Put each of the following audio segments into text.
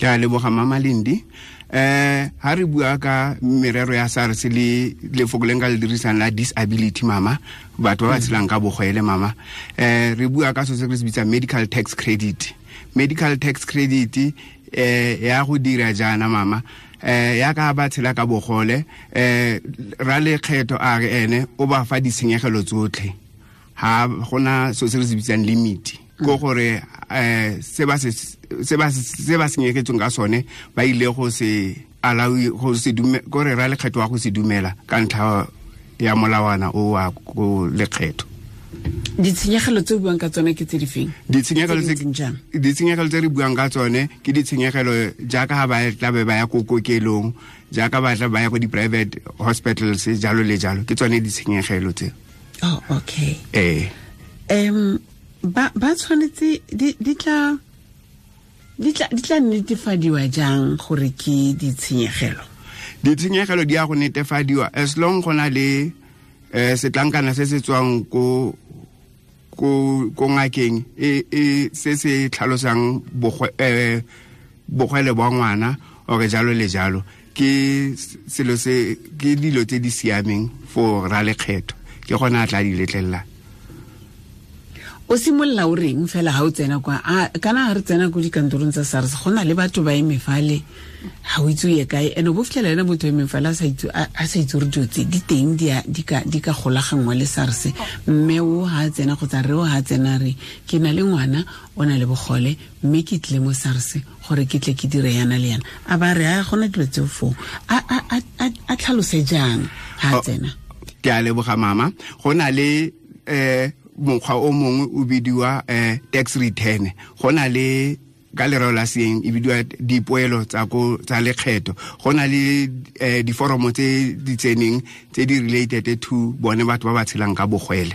Ke a leboga, Mama Lendi. Ha re bua ka merero ya SARS le lefoko le nka le dirisang la disability, mama, batho ba ba tshelang ka bogwele, mama, re bua ka so se re se bitsang medical tax credit. Medical tax credit ya go dira jaana, mama, ya ka ba tshela ka bogole, ra lekgetho a re ene o ba fa ditshenyegelo tsotlhe, ha gona so se re se bitsang limit, ko gore se ba se senyegetsweng ka sone ba ile go se allow, go se dume, gore ra lekgetho wa go se dumela ka ntlha ya molawana o wa ko lekgetho. Ditshenyegelo tse o buang ka tsone ke tse di feng? Ditshenyegelo Tse di ntseng jang? Ditshenyegelo tse re buang ka tsone ke ditshenyegelo jaaka ha ba tla be ba ya ko kokelong, jaaka ba tla ba ya ko di-private hospitals, jalo le jalo, ke tsone ditshenyegelo tse. Oh, okay. Ee. Ba tshwanetse di tla netefadiwa jang gore ke ditshenyegelo? Ditshenyegelo di ya go netefadiwa as long go na le setlankana se se tswang ko ngakeng e se se tlhalosang bogwele bwa ngwana ore jalo le jalo. Ke selo se ke dilo tse di siameng for ra lekgetho, ke gona a tla di letlelela. O simolola o reng fela ga o tsena kwa? A kana ga re tsena ko dikantorong tsa SARS, go na le batho ba eme fale, ga o itse o ye kae, and o bo fitlhela ena motho eme fale a sa itse gore dilo tse di teng di ka golaganngwa le SARS. Mme o ga a tsena kgotsa re o ga a tsena, re ke na le ngwana o na le bogole, mme ke tlile mo SARS gore ke tle ke dire yana le yana, a ba re a gona dilo tseo foo, a tlhalose jang ga a tsena? Ke a leboga, mama. Go na le mokgwa o mongwe o bidiwa tax return. Go na le ka lereo la seeng e bidiwa dipoelo tsa ko tsa lekgetho. Go na le diforomo tse di tseneng tse di related to bone batho ba ba tshelang ka bogwele.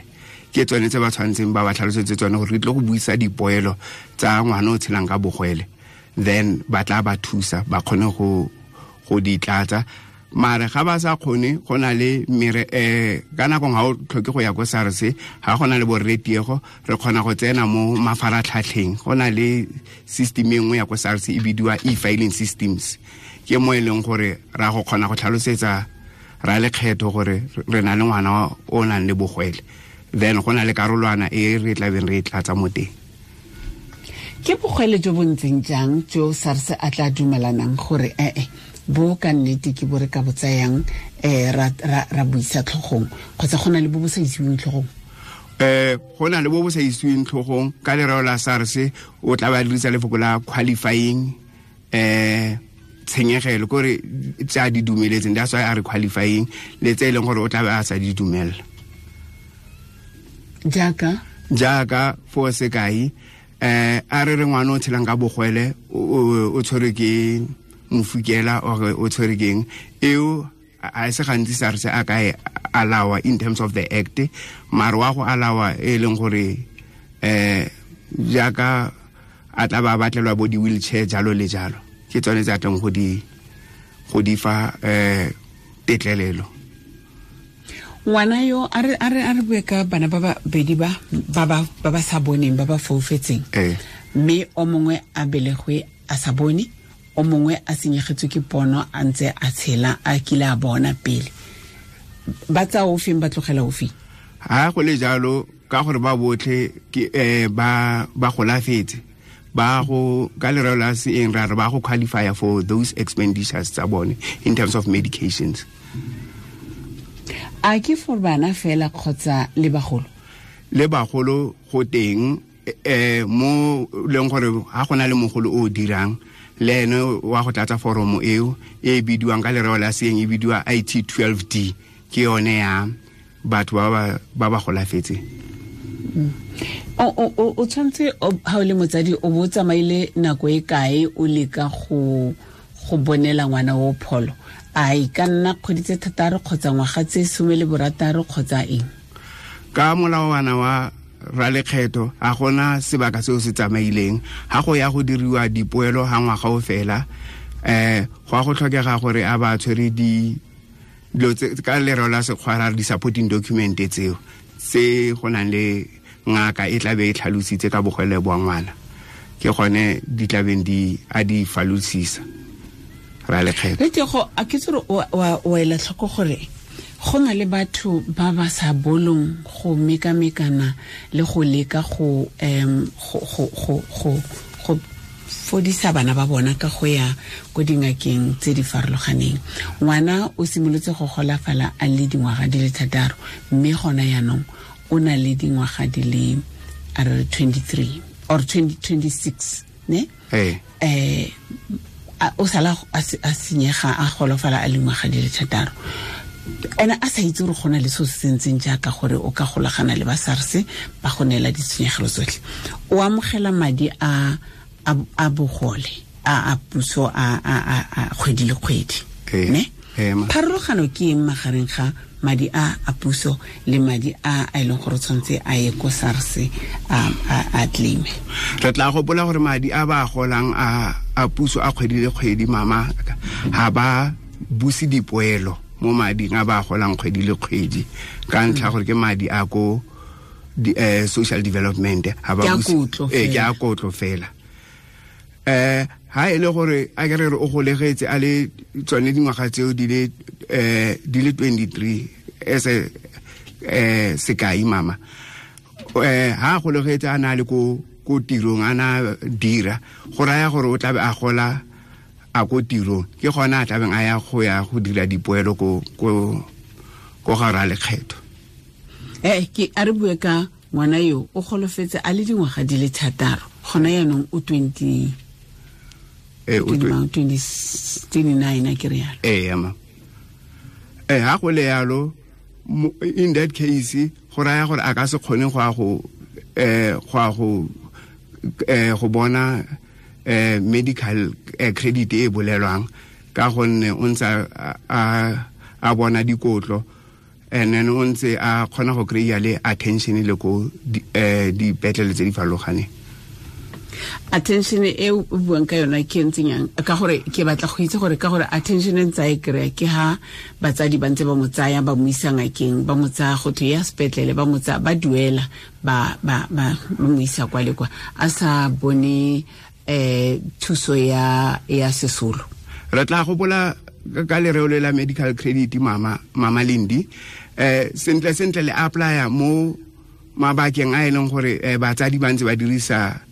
Ke tsone tse ba tshwanetseng ba ba tlhalosetse tsone gore re tle go buisa dipoelo tsa ngwana o tshelang ka bogwele, then ba tla ba thusa ba kgone go di tlatsa. Mare ga ba sa kgone, go na le mere ka nako ga o tlhoke go ya ko SARS. Ga go na le borretiego, re kgona go tsena mo mafaratlhatlheng. Go na le system e nngwe ya ko SARS e bidiwa e-filing systems, ke mo e leng gore ra go kgona go tlhalosetsa ra lekgetho gore re na le ngwana o nang le bogwele, then go na le karolwana e re tlabeng re e tlatsa mo teng. Ke bogwele jo bo ntseng jang jo SARS a tla dumelanang gore ee, bo ka nnete ke bo re ka bo tsayang ra buisa tlhogong, kgotsa go na le bo bo sa isiweng tlhogong? Go na le bo bo sa isiweng tlhogong. Ka lereo la SARS o tla ba dirisa lefoko la qualifying tshenyegelo, kore tse a di dumeletseng, that's why a re qualifying, le tse e leng gore o tla be a sa di dumela. Jaaka? Jaaka, for sekai, a re re ngwana o tshelang ka bogwele o tshwerwe ke mofukela or o tshwerwe keng eo, a se gantsi SARS a ka e allowa in terms of the act, mare wa go allowa e leng gore jaaka a tla ba batlelwa bo di-wheelchair, jalo le jalo, ke tsone tse a tleng go di fa tetlelelo. Ngwana yo a re bue ka bana ba babedi ba ba sa boneng, ba ba foufetseng, mme o mongwe a belegwe a sa bone, o mongwe a senyegetswe ke pono a ntse a tshela, a kile a bona pele, ba tsaya ofeng, ba tlogela ofeng? Ha go le jalo, ka gore ba botlhe ke ba golafetse, ba go ka lereo la seeng ra re ba go qualify for those expenditures tsa bone in terms of medications. A ke for bana fela kgotsa le bagolo? Le bagolo go teng, mo leng gore ha go na le mogolo o dirang le ene wa go tlatsa foromo eo e bidiwang ka lereo la seeng e bidiwa IT 12D, ke yone ya batho ba ba golafetseng. O tshwanetse ha o le motsadi o bo o tsamaile nako e kae o leka go bonela ngwana o pholo? A e ka nna kgwedi tse 6 kgotsa ngwaga tse 16 kgotsa eng? Ka molawana wa ralekgetho a gona sebaka seo se tsamaileng. Ga go ya go diriwa dipoelo ga ngwaga o fela, go a go tlhokega gore a ba tshwere di dilo tse ka lereo la sekgwa ra re di-supporting document tseo tse go nang le ngaka e tla be e tlhalositse ka bogwele bwa ngwana. Ke gone di tlabeng di a di falosisa ra lekgetho. Le go a ke tsore wa ela tlhoko gore go na le batho ba ba sa bolong go mekamekana le go leka go go fodisa bana ba bona ka go ya ko dingakeng tse di farologaneng. Ngwana o simolotse go golafala a le dingwaga di le 6, mme gona yaanong o na le dingwaga di le a re 23 or 26, ne? O sala a senyega a golofala a le dingwaga di le 6. Ene a sa itse gore go na le seo se sentseng jaaka gore o ka golagana le ba SARS ba go neela ditshenyegelo tsotlhe. O amogela madi a bogole a puso a kgwedi le kgwedi, ne? Pharologano ke eng magareng ga madi a puso le madi a e leng gore tshwanetse a ye ko SARS a claime? Re tla gopola gore madi a ba golang a puso a kgwedi le kgwedi, mama, ha ba buse dipoelo mo mading a ba golang kgwedi le kgwedi ka ntlha gore ke madi a ko social development, ha ba buse ke a kotlo fela. Ha e le gore a ke re o golegetse a le tsone dingwaga tseo di le 23 as sekai, mama, ha golegetse a na le ko tirong a na dira, go raya gore o tlabe a gola a ko tirong, ke gona a tlabeng a ya go ya go dira dipoelo ko ga ra lekgetho. Ke a re bue ka ngwana yo o golofetse a le dingwaga di le 6, gona yaanong o 29 a ke re yalo. Ma. Ha go le yalo, in that case go raya gore a ka se kgone go ya go bona medical credit e bolelwang ka gonne o ntse a bona dikotlo, and then o ntse a kgona go kry-a le attention le ko dipetlele tse di farologaneng. Attention e o buang ka yona ke ntseng yang? Ka gore ke batla go itse gore ka gore attention e ntse a e kry-a ke ha batsadi ba ntse ba mo tsaya ba mo isa ngakeng, ba mo tsaya go thwe ya sepetlele, ba mo tsaya ba duela ba mo isa kwa le kwa, a sa bone thuso ya sesolo. Re tla gopola ka lereo le la medical credit, mama Lindi, sentle sentle le applya mo mabakeng a e leng gore batsadi ba ntse ba dirisa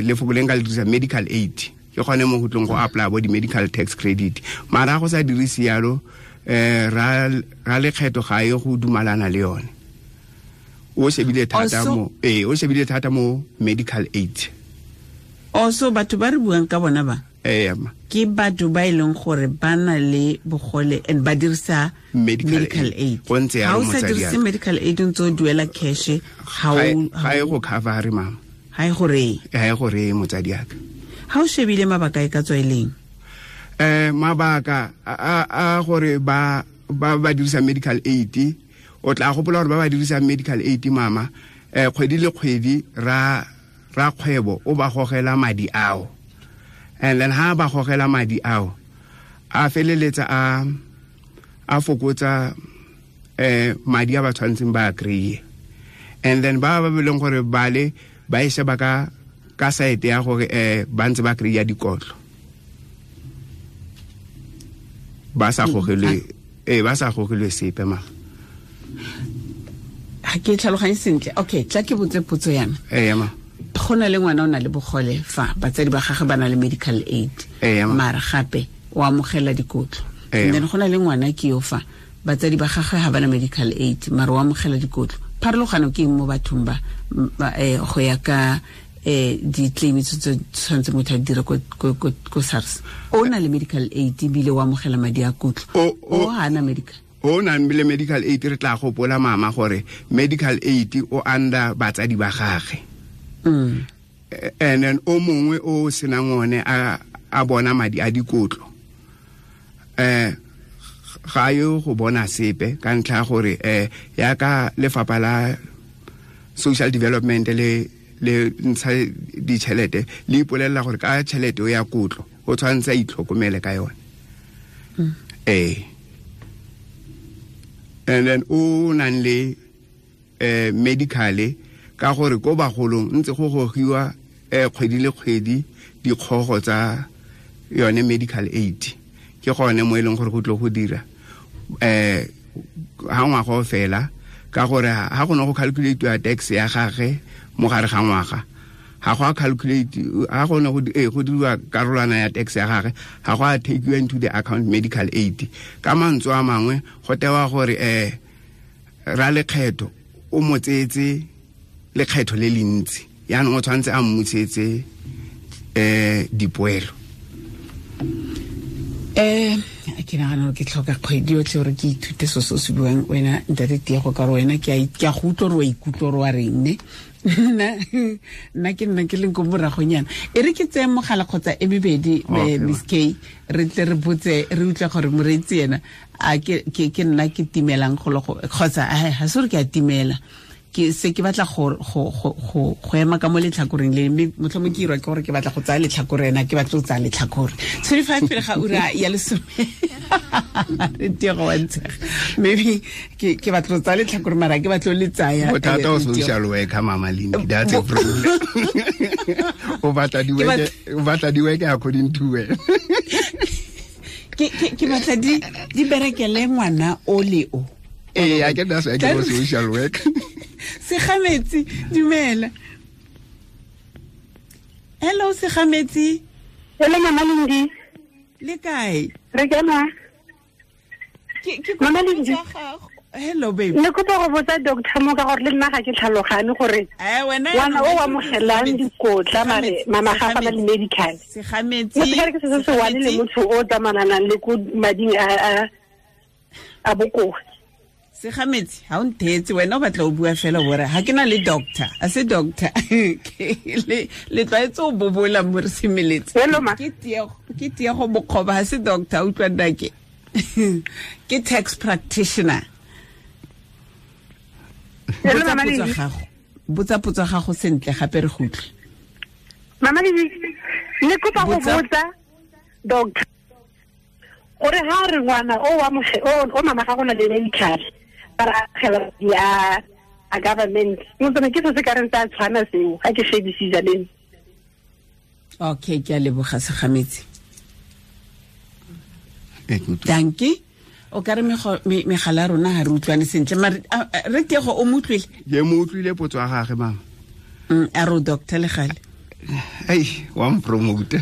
lefoko le nka le dirisa medical aid, ke gone mo go tlong go apply bo di-medical tax credit. Mara go sa dirise yalo, ra lekgetho ga ye go dumalana le yone. O shebile thata mo o shebile thata mo medical aid. Also batho ba re buang ka bona ba ke batho ba e leng gore ba na le bogole and ba dirisa medical aid. Ha o sa dirise medical aid o ntse o duela cash, ga e go cover, mama. Ha e gore ha e gore motsadi aka. Ha o shebile mabaka e ka tswa eleng? Mabaka a gore ba ba dirisa medical aid, o tla gopola gore ba ba dirisa medical aid, mama, kgwedi le kgwedi ra kgwebo o ba gogela madi ao, and then ha ba gogela madi ao a feleletsa a fokotsa madi a ba tshwantseng ba kry-e, and then ba ba beleng gore bale ba e sheba ka site ya gore ba ntse ba kry-a dikotlo, ba sa gogelwe ba sa gogelwe sepe, ma. Ha ke tlhaloganye sentle. Okay, tla ke botse potso yana. Ma. Go na le ngwana o na le bogole fa batsadi ba gagwe ba na le medical aid, mara gape o amogela dikotlo. And then go na le ngwana ke yo fa batsadi ba gagwe ga ba na medical aid, mara o amogela dikotlo. Pharologano ke eng mo bathong ba go ya ka di-claim tse tshwanetse motho a di dire ko SARS? O na le medical aid ebile o amogela madi a kotlo, o ga ana medical. O nang le medical aid, re tla gopola, mama, gore medical aid o under batsadi ba gagwe. And then o mongwe o senang one a bona madi a dikotlo, ga yo go bona sepe ka ntlha gore ya ka lefapha la social development le ntsha ditšhelete le ipolelela gore ka tšhelete o ya kotlo o tshwanetse a itlhokomele ka yone. And then o nang le medical, ka gore ko bagolong ntse go gogiwa kgwedi le kgwedi dikgogo tsa yone medical aid. Ke gone mo e leng gore go tlo go dira ha ngwaga o fela, ka gore ha go ne go calculate tax ya gagwe mo gare ga ngwaga, ha go a calculate, ha go ne go diriwa karolwana ya tax ya gagwe, ha go a take you into the account medical aid. Ka mantswe a mangwe go tewa gore ra lekgetho o mo tseetse lekgetho le le ntsi, yaanong o tshwanetse a mmusetse dipoelo. Ke nagana gore ke tlhoka kgwedi yotlhe gore ke ithute so se o se buang wena ntate Tiego, ka gore wena ke a go utlwa gore wa ikutlwa gore wa reng ne. Nna ke nna ke leng ko moragonyana. E re ke tseye mogala kgotsa e mebedi, Miss K, re tle re botse re utlwe gore moreetsi ena a ke nna ke timelang golo kgotsa ga se gore ke a timela, ke se ke batla go ema ka mo letlhakoreng le, mme motlhomong ke irwa ke gore ke batla go tsaya letlhakore, ena ke batla go tsaya letlhakore. 25 pele ga ura ya lesome. Re Tiego wa ntshega, maybe ke batla go tsaya letlhakore mara ke batla le tsaya. Bothata o social worker, Mama Lindi, that's a problem. O batla di work according to where. Ke batla di berekele ngwana o le o. I get that's why I get social work. Segametsi, dumela. Hello Segametsi. Hello Mama Lindi. Le kae? Re kae ma? Ke Mama Lindi. Hello baby. Ne kopa go botsa doctor mo ka gore le nna ga ke tlhalogane gore ngwana o amogelang dikotla mare mama ga fa le medical. Segametsi. Motho ke se se wane le motho o tsamananang le ko mading a bokoa. Segametsi, ha o nthetse wena o batla o bua fela bora ha ke na le doctor, a se doctor. Le tlwaetse o bobola mo re semeletse. Ke Tiego Mokgoba, ha se doctor, utlwa nnake. Ke tax practitioner. Botsa potso gago sentle gape re go utlwe. Mama ne kopa go botsa doctor gore ha re ngwana o o mama ga gona le medical ba agela ya a government, motho ke se ka reng tsa tshwana seo ga ke shebisisa le. Okay, ke a leboga Segametsi. Dankie. O ka re megala rona ha re utlwane sentle mare re Tiego o mo utlwile? Ke mo utlwile potso ya gagwe mama. A re o doctor le gale. Ei, wa mpromote.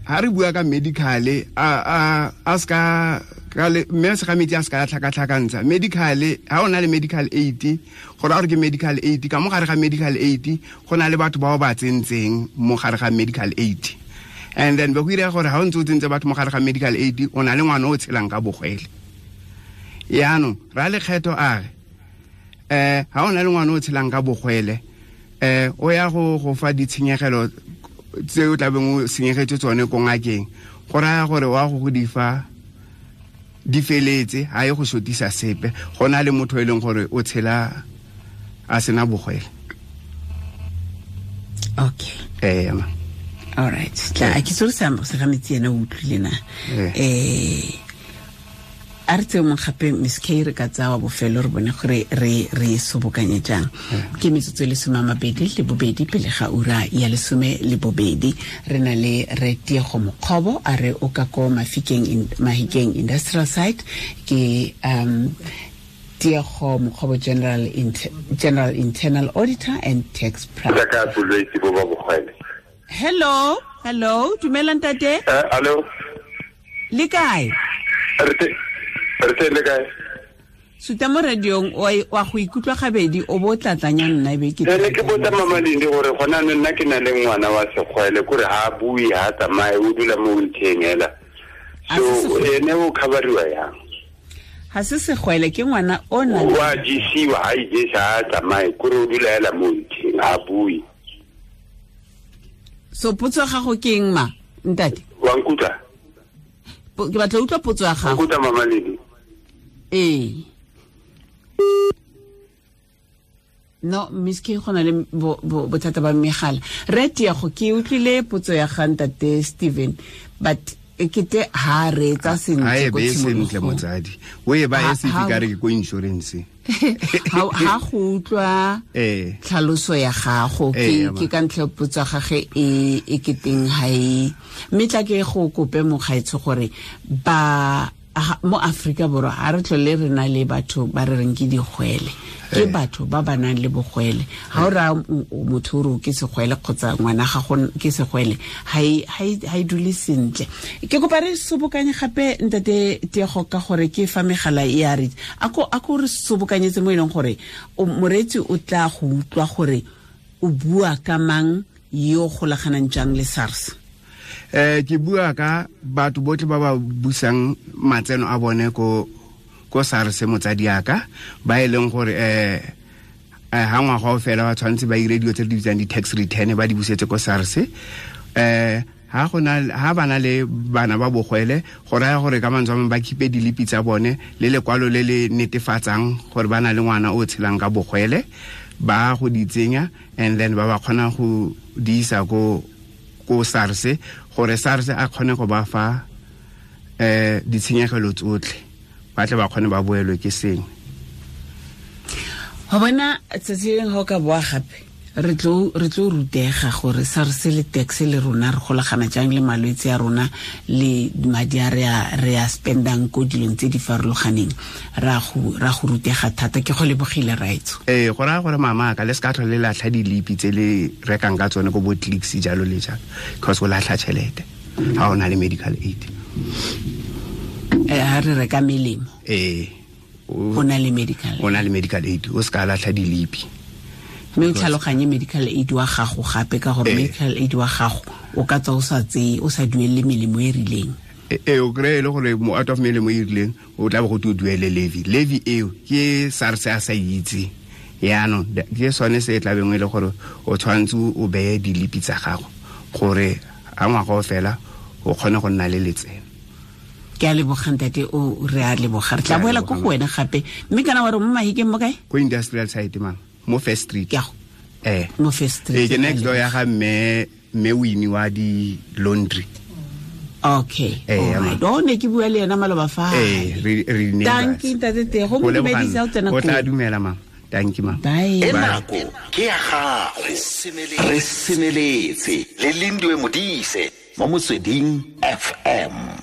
Ha re bua ka medical a ska ka le mme Segametsi a ska tlhakatlhakantsha medical. Ha ona le medical aid, gore a re ke medical aid, ka mo gare ga medical aid go na le batho bao ba tsentseng mo gare ga medical aid, and then ba go ira gore ha o ntse o tsentse batho mo gare ga medical aid o na le ngwana o tshelang ka bogwele. Yaanong ra lekgetho a re ha o na le ngwana o tshelang ka bogwele o ya go fa ditshenyegelo tse o tlabeng o senyegetse tsone ko ngakeng, go raya gore wa go di fa di feletse, ha e go sotisa sepe, go na le motho e leng gore o tshela a sena bogwele. Okay. Ma. All right. Tla ke tsore sa Segametsi ena o utlwile na. A re tseye mong gape Miss K re ka tsaya wa bofelo re bone gore re sobokanye jang. Ke metsotso e 22 pele ga ura ya 12. Re na le re Tiego Mokgobo a re o ka ko Mahikeng Industrial Site. Ke Tiego Mokgobo, General Internal Auditor and Tax Practitioner. Hello, dumela ntate. Hello. Le kae? Re le kae? Suta mo radiong wa go ikutlwa gabedi o bo tlatlanya nna ebe ke. Ne ke botsa Mama Lindi gore gona nna ke na le ngwana wa segwele kore ha bue ha tsamaye o dula mo wheelchair hela. So ene o coveriwa yang? Ha se segwele ke ngwana o na wa jisiwa ha ijesa ha tsamaye kore o dula hela mo wheelchair ha bue. So potso ya gago ke eng ma ntate? Wa nkutlwa? Ke batla utlwa potso ya gago. Nkutlwa Mama Lindi. Ee. No, Miss K go na le bothata ba megala. Re Tiego ke utlwile potso ya ga ntate Steven, but e kete ha re tsa sentle ko tshimologong. Sentle motsadi. O e ba e se ka re ke ko insurance. Ha go utlwa tlhaloso ya gago ke ka ntlha potso gage e ke teng ha e mme tla ke go kope mogaetsho gore ba mo Afrika Borwa ha re tlole re na le batho ba re reng ke digwele ke batho ba ba nang le bogwele ha o ra motho o re ke segwele kgotsa ngwana ga go ke segwele ha e dule sentle. Ke kopa re sobokanye gape ntate Tiego ka gore ke fa megala e a re a ko re sobokanyetse mo e leng gore moreetsi o tla go utlwa gore o bua ka mang yo golaganang jang le SARS. Ke bua ka batho botlhe ba ba busang matseno a bone ko SARS motsadi aka ba e leng gore ha ngwaga o fela ba tshwanetse ba ire dilo tse di bitsang di-tax return ba di busetse ko SARS. Ha ha bana le bana ba bogwele go raya gore ka mantswe a mangwe ba khipe dilipi tsa bone le lekwalo le le netefatsang gore ba na le ngwana o tshelang ka bogwele ba go di tsenya and then ba ba kgona go di isa ko SARS gore SARS a kgone go ba fa ditshenyegelo tsotlhe ba tle ba kgone ba boelwe ke sengwe. Go bona tsatsi leng ga o ka boa gape re tlo rutega gore SARS le tax le rona re golagana jang le malwetse a rona le madi a re a spendang ko dilong tse di farologaneng ra go rutega thata. Ke go lebogile raetso. Go raya gore mama ka le se ka tlhole le latlha dilipi tse le rekang ka tsone ko bo Clicks jalo le jalo because o latlha tšhelete ga o na le medical aid. Ha re reka melemo o na le medical o na le medical aid o se ka latlha dilipi mme o tlhaloganye medical aid wa gago gape ka gore medical aid wa gago o ka tswa o sa tseye o sa duelele melemo e rileng. O kry-e le gore mo out of melemo e rileng o tla bo go te o duele levy eo ke SARS a sa itse yaanong ke sone se e tlabeng e le gore o tshwanetse o beye dilipi tsa gago gore a ngwaga o fela o kgone go nna le letseno. Ke a leboga ntate o re a leboga re tla boela ko go wena gape mme kana wa re mo Mahikeng mo kae? Ko industrial site mama mo First Street. Mo First Street. Ke next door ya ga mme Winnie wa di laundry. Okay. Alright. O ne ke bua le yena maloba fa. Re ne. Thank you ntate Tiego mo dumedisa o tsena ko. O tla dumela mama. Thank you mama. Bye. Nako ke ya gago. Re semeletse le Lindiwe Modise mo Motsweding FM.